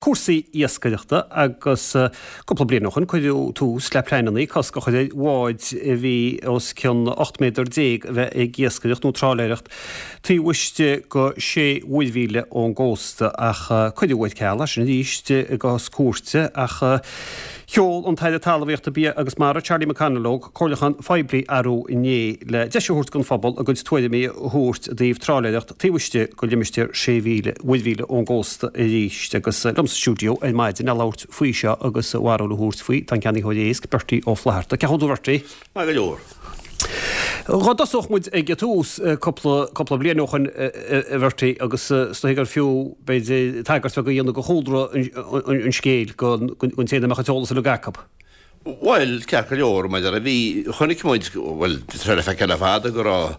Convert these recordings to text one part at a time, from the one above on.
Cúrsaí iascaireachta agus cúpla bliain ó shoin cuireadh tús le pleananna cosc a chur ar bháid a bhí os cionn 18 méadar a bheith ag iascaireacht nó trálaeireacht taobh istigh de sé mhuirmhíle ón gcósta ach cuireadh ar ceal é sin arís i gcás cúirte ach sheol an tAire Talmhaíochta, Bia agus Mara, Charlie McConalogue, comhairliúchán phoiblí arú inné le deis a thabhairt don phobal a gcuid tuairimí a thabhairt i dtaobh trálaeireacht taobh istigh de limistéar sé mhíle mhuirmhíle ón gcósta arís. Agus liom sa stiúideo ar maidin le labhairt faoi seo agus a bharúil a thabhairt faoi, tá an ceannaitheoir éisc, Bertie Ó Flatharta. Cén chaoi a bhfuil tú a Bhertie? Maith go leor. Dá dtosódh muid ag an tús cúpla, cúpla bliain ó shoin, a Bhertie, agus is dóigh gur fiú, b'fhéidir, tagairt bheag a dhéanamh do chúlra an scéil don té nach mbeadh an t-eolas uilig acu. Bhuel, ceart go leor, mar a bhí, chonaic muid, bhuel, tá sé le feiceáil le fada go raibh,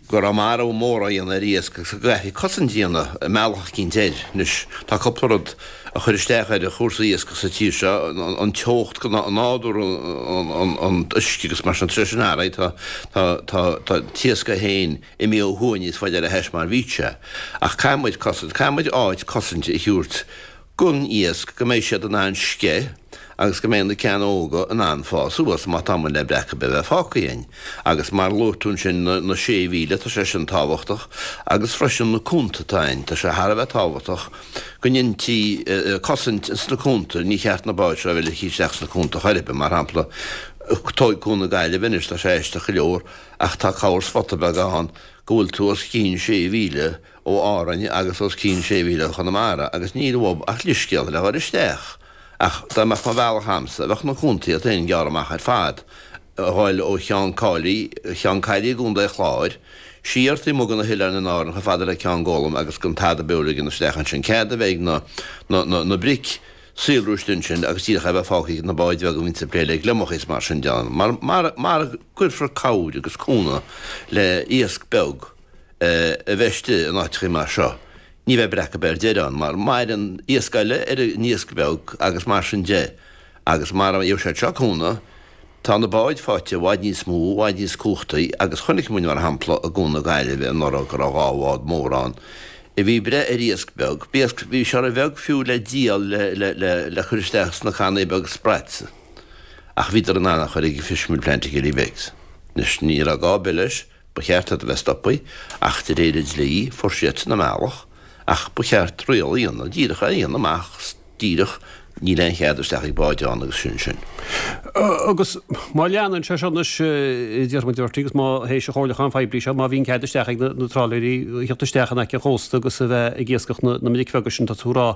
go raibh marú mór á dhéanamh ar iasc agus go gcaithfí cosaint a dhéanamh i mbealach eicínt air. Anois, tá cúpla rud a chuir isteach ar chúrsaí iascaigh sa tír seo, an teocht, nádúr an uisce agus mar sin, tá sé sin athraithe, tá, tá, tá, tá an t-iasc é féin imithe ó thuaidh níos faide ar theas mar bhí sé. Ach caithfidh muid cosaint, caithfidh muid áit cosainte a thabhairt don iasc go mbeidh siad in ann sceith agus go mbeidh na ceanna óga in ann fás suas má tá muid le breac ar bith a bheith fágtha againn. Agus mar a luaigh tú ansin na sé mhíle, tá sé sin tábhachtach agus freisin na cuanta atá ann, tá sé thar a bheith tábhachtach go ndéantaí cosaint ins na cuanta, ní cheart na báid seo a bheith ligthe isteach sna cuanta chor ar bith, mar shampla tóig Cuan na Gaillimhe anois, tá sé aisteach go leor ach tá corr spota beag ann go bhfuil tú os cionn sé mhíle ó Árainn agus os cionn sé mhíle ó Chonamara agus níl uathub ach leithscéal le dhul isteach. Ach dá mbeadh mo bhealach a'msa, bheadh na cuantaí iad féin gearrtha amach ar fad, a ghoil ó Cheann Cáilí, Ceann Caillí i gContae Chláir, siar taobh amuigh de na hoileáin in Árainn chomh fada le Ceann Gólaim agus gan tada beo a ligean isteach ansin. Cead a bheith ag na, na, na, na bric saolrú istigh ansin agus díreach é a bheith fágtha ag na báid bheaga a bhíonns ag plé le gliomachaí is mar sin de. Mar, mar, mara gcuirfear cabhair agus cúnamh le iasc beag, a bheith istigh in áiteachaí mar seo, ní bheidh breac ar bith ar deireadh ann, mar maireann iasc eile ar an iasc beag agus mar sin de, agus mara bhfaighidh siad seo cúnamh, tá na báid faighte i bhfad níos mó, i bhfad níos cumhachtaí, agus chonaic muid, mar shampla, i gCuan na Gaillimhe anuraidh go raibh 2 bhád mór ann a bhí ag breith ar iasc beag, b'iasc, bhí sé ro-bheag fiú le díol le, le, le, le cur isteach sna cannaí beaga sprats, ach bhíodar in ann a chur ag an fishmeal plant i Killybegs. Anois, ní raibh gá ar bith leis. Ba cheart iad a bheith stoptha, ach de réir an dlí, fuair siadsan a mbealach, ach ba cheart riail a dhéanamh, díreach é a dhéanamh amach díreach, níl aon chead isteach ag báid ann agus sin sin. Agus má leanann sé seo anois, déarfaidh muid, a Bhertie, agus má théis an chomhairliúcháin phoiblí seo, má bhíonn cead isteach ag na trálaeirí a theacht isteach in aice an chósta agus a bheith ag iascach na mbric bheaga sin, tá tú ag rá,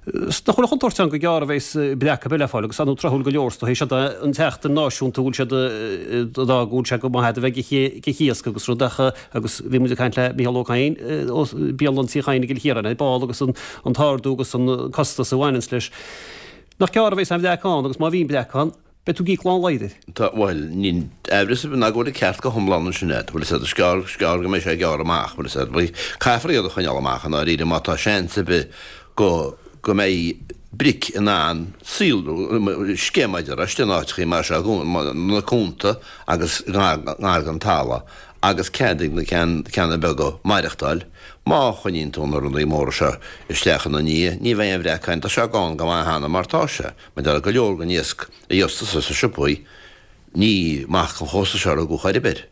Nach bhfuil an chontúirt ann gur gearr a bheas breac ar bith le fáil agus ar ndóigh tráthúil go leor is dóigh. Seo an tseachtain náisiúnta a bhfuil siad ag rá go bhfuil sé go maith a bheith ag iasc agus rud ach agus bhí muid ag caint le Mícheál Ó Cadhain ó Bialann Tí Chadhain i gCill Chiaráin ar ball agus an t-ardú agus an costas a bhaineanns leis. Nach gearr a bheas an bhreac ann agus má bhíonn breac ann, Beidh tú ag íoc lán laghad air. Tá, bhuel, níl aimhreas ar bith ná go bhfuil an ceart go hiomlán ansin agat, bhfuil a fhios agat, is gearr, is gearr go mbeidh sé gearrtha amach, bhfuil a fhios agat. Caithfear iad a choinneáil amach i ndáiríre má tá seans ar bith go, go mbeidh bric in ann saolrú, sceith mar a déarfá, istigh in áiteachaí mar seo, na cuanta agus ngar, ngar don talamh agus cead ag na ceann, ceanna beaga maireachtáil. Má choinníonn tú na rudaí móra seo isteach ina ndiaidh, ní bheidh aon bhreac ann, tá sé gann go maith cheana mar tá sé. Mar tá go leor den iasc a gheobhas tusa sna siopaí, ní amach an chósta seo a rugadh chor ar bith.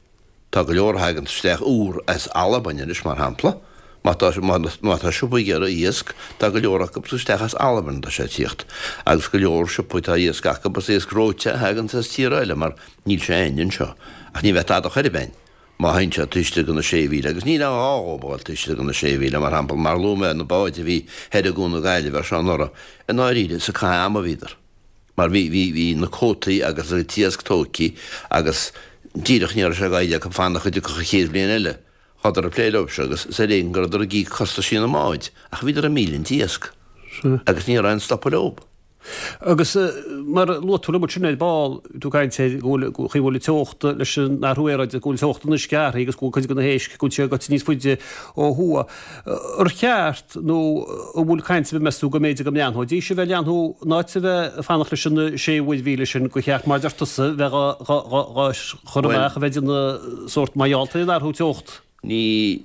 Tá go leor a thaganns isteach úr as Albain anois, mar shampla. Má tá, má tá siopaí ag iarraidh iasc, tá go leor acu isteach as Albain atá sé ag tíocht. Agus go leor siopaí tá iasc acu, is iasc reoite a thaganns as tíortha eile mar níl sé againn anseo. Ach ní bheidh tada chor ar bith againn. Má théann siad taobh istigh de na sé mhíle, agus níl aon ghá dhóibh a dhul taobh istigh de na sé mhíle, mar shampla, mar a luaigh mé, na báid a bhí thoir i gCuan na Gaillimhe ar seo anuraidh, i ndáiríre, is ag caitheamh ama a bhíodar. Mar bhí, bhí, bhí na cuótaí agus an t-iasc tóigthe agus díreach ní raibh sé gaibhte acu fanacht go dtiocfadh an chéad bhliain eile. Chuadar ag plé leo seo agus is ar éigean go rabhadar ag íoc costaisí na mbád, ach bhíodar ag millint iasc. Agus ní raibh aon stopadh leo. Agus mar a luaigh tú liom ansin ar ball, tú ag caint ar go bhfuil, go bhfuil an teocht leis an athrú aeráide, go bhfuil teocht an uisce athraithe agus go bhfuil cuid de na héisc, go bhfuil siad gaibhte níos faide ó thuaidh. Ar cheart nó an bhfuil caint ar bith meas tú go mb'fhéidir go mbreathnóidís a bheith ag leathnú in áit a bheith ag fanacht leis an sé mhuirmhíle sin gur cheart mar a deir tusa bheith dhá chur amach a bheith ag déanamh sórt mar gheall ar an athrú teocht? Ní.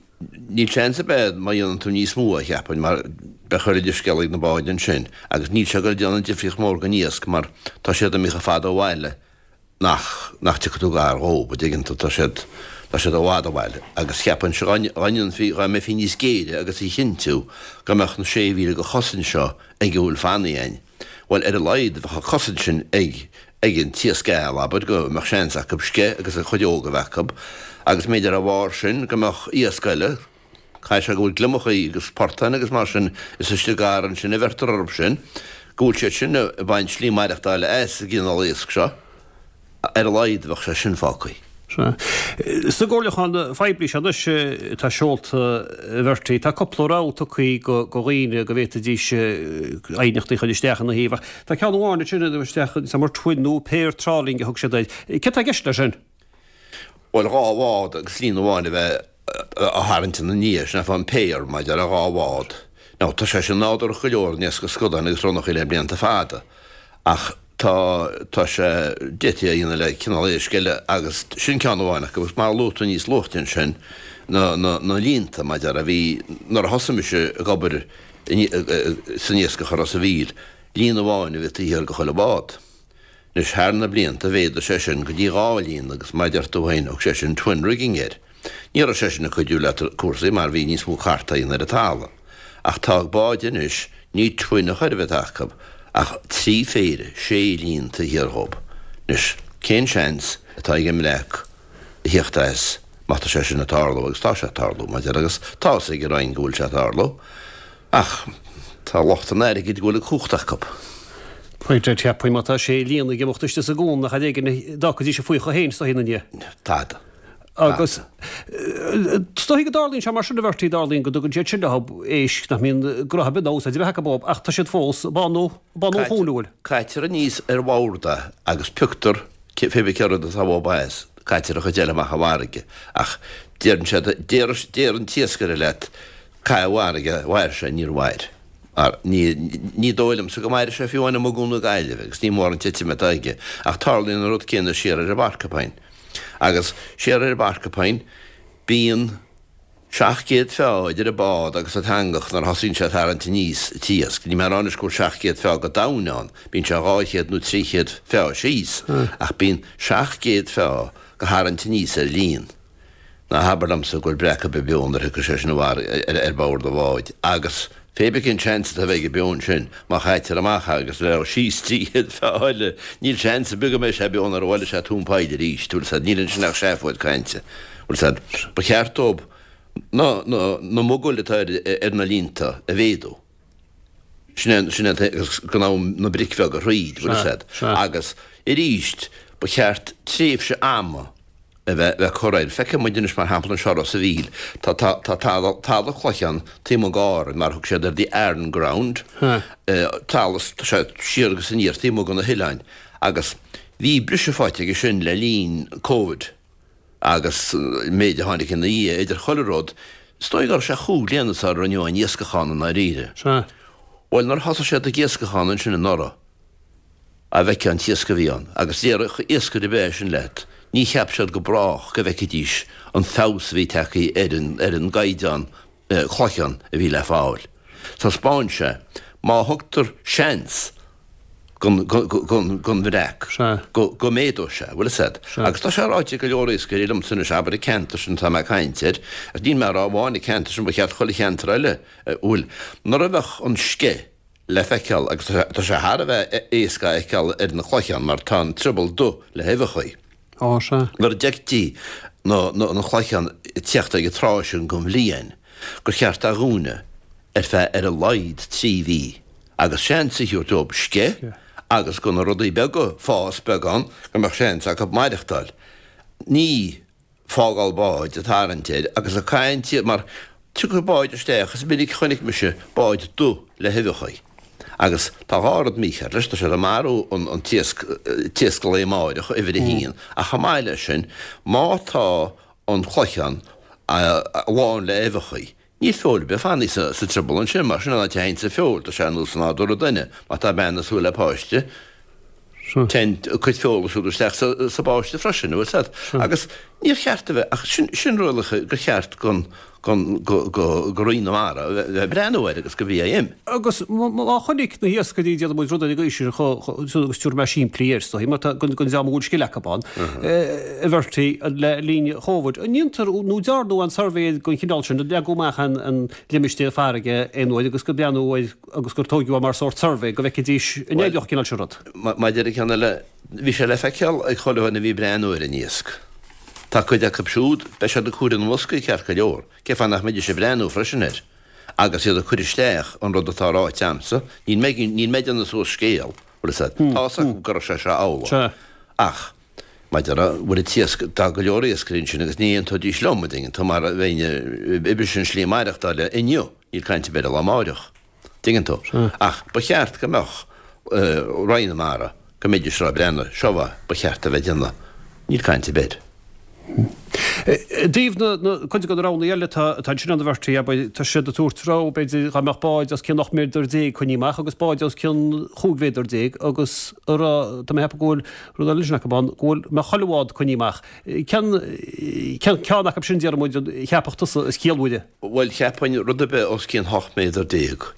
Níl seans ar bith má dhéanann tú níos mó, cheapfainn, mar beidh chuile leithscéal ag na báid ansin agus níl sé ag dul a déanamh difríocht mhór don iasc mar tá siad imithe chomh fada ó bhaile nach, nach dtiocfaidh tú gar dhób, a dtuigeann tú, tá siad, tá siad i bhfad ó bhaile agus cheapfainnse dá, dá ndéanfaí, dá mbeifí níos géire agus a chinntiú go mbeadh na sé mhíle de chosaint seo ag a bhfuil fanaithe againn. Bhuel, ar a laghad, bheadh an chosaint sin ag ag an t-iasc geal, abair, go mbeadh seans acu sceith agus a chuid óg a bheith acu, agus mb'fhéidir dá bharr sin go mbeadh iasc eile, caithfidh sé go bhfuil gliomachaí agus portáin agus mar sin, is istigh gar ansin a bheirtear orthu sin, go bhfuil siad sin ag baint slí maireachtála as an gcineál iasc seo. Ar a laghad bheadh sé sin fágtha. Sea. Sa gcomhairliúchán phoiblí seo anois atá seolta, a Bhertie, tá cúpla rogha tugtha do dhaoine go bhféadfaidís aighneachtaí a chur isteach ina thaobh ach tá ceann amháin ansin a isteach mar twin nó pair trawling a thug siad air. Céard tá i gceist leis sin? Bhuel, dhá bhád agus líon amháin a bheith á tharraingt ina ndiaidh, sin é an pair, maidir le dhá bhád. Now, tá sé sin nádúrach go leor in iascach scadáin agus ronnachaí le blianta fada ach, Tá, tá sé, d'fhéadfaí é a dhéanamh le cineál éisc eile agus sin ceann amháin acu agus mar a luaigh tú níos luaithe ansin, na, na, na líonta, mar a déarfá, bhí, nuair a thosaigh mise ag obair san iascach i Ros a' Mhíl, líon amháin a bhí taobh thiar de chuile bhád. Anois, thar na blianta, mhéadaigh sé sin go dtí dhá líon agus mar a deir tú féin, thug sé sin twin rigging air. Ní raibh sé sin ag cuidiú le cúrsaí mar bhí níos mó cartadh á dhéanamh ar an talamh. Ach tá báid anois, ní twin a chor ar bith atá acu, ach trí phéire, sé líon taobh thiar dhób. Anois, cén seans atá ag an mbreac a thíocht as má tá sé sin ag tarlú, agus tá sé ag tarlú, mar a déarfá, agus tá fhios ag an Roinn go bhfuil sé ag tarlú, ach tá lucht an airgid go bhfuil an chumhacht acu. Pointe, cheapfainn má tá sé líon ag imeacht istigh sa gcuan nach ar éigean a d'fhágfaidís a faocha féin istigh ina ndiaidh. Tada. Agus is dóichí go dtarlaíonn sé mar sin a Bhertie, tarlaíonn go dtugann siad sin leo éisc nach mbíonn gnoithe ar bith ná úsáid ar bith acu dóibh ach tá siad fós ag bánú, bánú an chuain, an bhfuil? Caitear aníos ar bhord é agus pioctar pé bith cé rud atá uathu as, caitear an chuid eile amach i bhfarraige ach deireann siad, deir, deir an t-iascaire leat caith i bhfarraige, mhair sé, níor mhair. Mar ní, ní dóigh liomsa go mairfidh sé fiú amháin amuigh i gCuan na Gaillimhe agus ní mór an titim atá aige ach tarlaíonn an rud céanna siar ar an bPorcupine. Agus siar ar an bPorcupine, bíonn 700 feá idir an bád agus an t-eangach nuair a thosaíonn sé ag tarraingt aníos an t-iasc. Níl mé ag rá anois go bhfuil 700 feá go domhain ann, bíonn sé 200 nó 300 feá síos, ach bíonn 700 feá go tharraingt aníos ar líon. Ná habair liomsa go bhfuil breac ar bith beo nuair a thiocfaidh sé sin ar bord an bháid. Agus pé bith cén seans atá a bheith aige beo ansin, má chaitear amach é agus leo síos 300 feá eile, níl seans ar bith go mbeidh sé beo nuair a bhuailfidh sé tóin poill arís. Bhfuil 'fhios a'd, níl ansin ach seafóid cainte. Bhfuil 'fhios a'd, ba cheart dóibh na, na, na mogaill atá ar, ar na líonta a mhéadú. Sin é, sin é agus go mbeadh na bric bheaga thríd, bhfuil 'fhios a'd. Agus arís, ba cheart tréimhse ama a bheith bheith curtha air. Feicfidh muid anois mar shampla anseo i Ros a' Mhíl, tá tá tá talamh talamh cloiche ann taobh amuigh d'Árainn mar a thug siad air the Aran ground, talamh tá sé siar agus aniar taobh amuigh de na hoileáin agus bhí briseadh faighte aige sin le linn Covid agus an méid a tháinig ina dhiaidh idir chuile rud, is dóigh go raibh sé chúig bliana sara rinneadh aon iascach ann i ndáiríre. Bhuel nuair a thosaigh siad ag iascach ann ansin anuraidh, a bhfeicfeá an t-iasc a bhí ann, agus déarfadh iascaire ar bith é sin leat, ní cheap siad go brách go bhfeicfidís an feabhas a bhí tagtha ar an, ar an gcaighdeán cloicheán a bhí le fáil. Taispeáin sé, má thugtar seans gon, gon, gon bhreac, go, go méadóidh sé, bhfuil fhios a'd. Agus tá sé ráite ag go leor iascairí liomsa anois, abair an ceantar sin atá mé ag caint air, agus níl mé ag rá amháin an ceantar sin, ba cheart chuile cheantar eile, bhfuil, nuair a bheadh an sceith, le feiceáil agus tá sé thar a bheith éasca a fheiceáil ar na cloicheáin mar tá an trioball dubh le huibheachaí. Á, sea. Nuair a d'fheictí na cloicheáin ag tíocht ag an tráth sin den bhliain gur cheart a dhúnadh ar feadh ar a laghad 3 mhí agus seans a thabhairt dóibh sceith agus go na rudaí beaga fás beagán go mbeadh seans acu maireachtáil. Ní. fágáil báid ag tarraingt air agus ag caint mar tiocfaidh báid isteach is minic chonaic mise báid dubh le huibheachaí agus tá dhá rud mícheart leis, tá siad ag marú an t-iasc, t-iasc an lae amáireach, uimhir a haon, ach chomh maith leis sin má tá an cloicheán lán le huibheachaí Níl feoil ar bith fanaithe sa trioball ansin, mar sin an áit a théanns an feoil, tá sé ar nós nádúr an duine, má tá bean ag súil le páiste, téann a cuid feola siúd isteach sa bpáiste freisin, bhfuil 'fhios a'd. Agus níor cheart a bheith, ach sin, sin rialacha gur cheart gon. Go Roinn na Mara a bheith ag breathnú air agus go BIM. Agus má chonaic na hiascairí, déanfaidh muid rud ar an gcaoi sin agus tabharfaidh mé simplí air, is dóigh, mar tá don dream a bhfuil scil acu ann, a Bhertie, le linn Chóvid. An ndéantar nó dearnadh aon suirbhé den chineál sin, an leagadh amach an limistéar farraige aon uair agus gur breathnú air agus gur tóigeadh é mar sórt suirbhé go bhfeicfidís an oibreodh an cineál sin rud? Maidir le ceann eile, bhí sé le feiceáil ag chuile dhuine a bhí ag breathnú ar an iasc. Tá cuid acu siúd, beidh siad ag cur na mboscaí ceart go leor, cén fáth nach mbeidís ag breathnú freisin air agus iad ag cur isteach an rud atá ráite a'msa, níl mé, níl mé ag déanamh suas scéal, bhfuil fhios a'd, tá fhios acu go raibh sé seo amhlaidh. Ach, maidir le, bhfuil an t-iasc, tá go leor iascairí ansin agus ní aontóidís liom, an dtuigeann tú, mar a bheinn oibre sin slí maireachtála inniu, níl caint ar bith ar an lá amáireach. Tuigeann tú? Ach ba cheart go mbeadh Roinn na Mara, go mbeidís ag breathnú, seo a ba cheart a bheith ag déanamh. Níl caint ar bith air. I dtaobh na cuid de na roghanna eile atá ansin ann a Bhertie, abair, tá siad ag tabhairt rogha, b'fhéidir, dá mbeadh báid os cionn 18 méadar coinnithe amach agus báid os cionn 15 mhéadar agus a rá, tá mé ag ceapadh go bhfuil rud eile ansin acu ann, go bhfuil, mbeadh chuile bhád coinnithe amach. Cén, cén ceann acu sin, déarfaidh muid, a cheapfadh tusa is ciallmhaire? Bhuel, cheapfainn rud ar bith os cionn 18 méadar,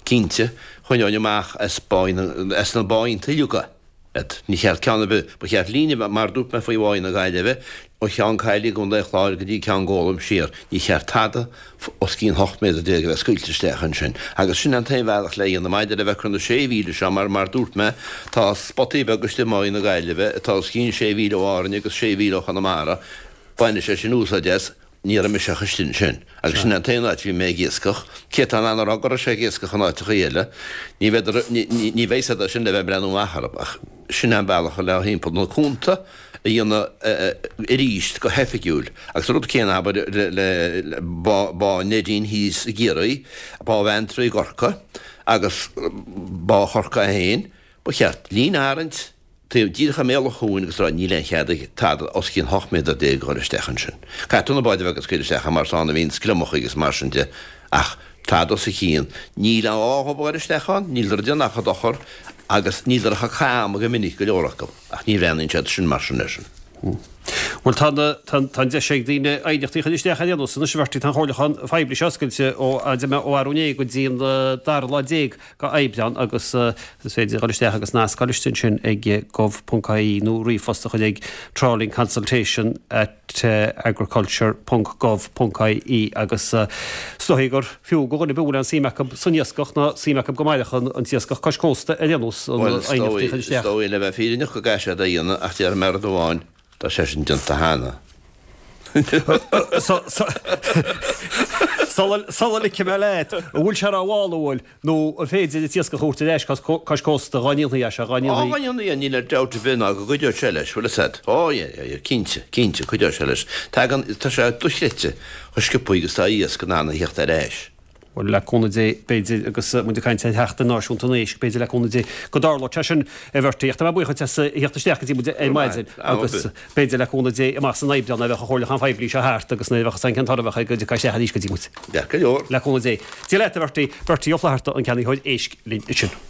cinnte. Choinneoinn amach as as na báinnte uilig iad. Ní cheart ceann ar bith, ba cheart líne, mar a dúirt mé faoi Bhá na Gaillimhe, ó Cheann Caille i gContae an Chláir go dtí Ceann Gólaim siar, ní cheart tada os cionn 18 méadar a bheith scaoilte isteach ansin. Agus sin an t-aon bhealach le dhéanamh maidir le bheith ag cur na sé mhíle seo, mar mar dúirt mé, tá spotaí beaga istigh i mBá na Gaillimhe atá os cionn sé mhíle ó Árainn agus sé mhíle ó Chonamara, baineadh sé sin úsáid as. Ní raibh mise ach istigh ansin, agus sin an t-aon áit a bhí mé ag iascach. Cé atá in ann a rá go raibh sé ag iascach in áiteachaí eile? Ní bheidh, ní bheidh siad sin le bheith ag breathnú amach orthu, ach sin an bealach le thimpeall na cuanta a dhéanamh arís go hoifigiúil. Agus an rud céanna, abair, le Bá Neidín thíos i gCiarraí, Bá Bheanntraí i gCorcaigh agus Bá Chorcaí féin, ba cheart líne a tharraingt, Taobh díreach i mbéal an chuain agus rá níl aon chead ag tada os cionn 18 méadar a dhul isteach ansin. Caithfidh tú na báid bheaga a scaoileadh isteach mar is ann a bhíonn gliomachaí agus mar sin de ach tada os a chionn. Níl aon ghá dhóibh a dhul isteach ann, níleadar ag déanamh ach dochar agus níleadar ach cam go minic go leor acu ach ní bhreathnaíonn siad sin mar sin air sin. Bhuel tá na, tá, tá an deis ag daoine aighneachtaí a chur isteach ar aon nós anois a Bhertie, tá an chomhairliúchán phoiblí seo oscailte ó, ó arú inné go dtí an dara lá déag go Aibreán agus is féidir dul isteach agus nasc a fháil istigh ansin ag gov.ie nó ríomhphost a chur ag trawlingconsultation at agriculture ponc gov ponc ie agus is dóigh gur fiú go dhuine ar bith a bhfuil aon suim acu san iascach ná suim acu go mairfeadh an t-iascach cois cósta ar aon nós an aighneachtaí a chur isteach. Bhuel, is dóigh le bheith fírinneach go gcaithfidh siad é a dhéanamh ach déarfaidh mé rud amháin, Tá sé sin déanta cheana. Sula ligfidh mé leat, an bhfuil sé rómhall, an bhfuil, nó an féidir an t-iascach a thabhairt ar ais cois cósta dhá ndéanfaí é seo, dhá ndéanfaí. Á, dhá ndéanfaí é, níl dabht ar bith ná go gcuideodh sé leis, bhfuil fhios a'd. Ó, yeah, yeah, yeah, cinnte, cinnte, cuideoidh sé leis. Tagann, tá sé dochreidte chomh sciobthaí agus atá iasc in ann a theacht ar ais. Bhuel, le cúnamh Dé, b'fhéidir, agus muid ag caint ar Sheachtain Náisiúnta an Éisc, b'fhéidir le cúnamh Dé go dtarlóidh sé sin, a Bhertie. Ach tá mé buíoch duit as a theacht isteach go dtí muid ar maidin agus b'fhéidir le cúnamh Dé amach san Aibreán nuair a bheadh an chomhairliúchán phoiblí seo thart agus nuair a bheadh an cén toradh a bheadh air go dtiocfá isteach arís go dtí muid. Ceart go leor. Le cúnamh Dé. Dia leat, a Bhertie. Bertie Ó Flatharta, an ceannaitheoir éisc linn ansin.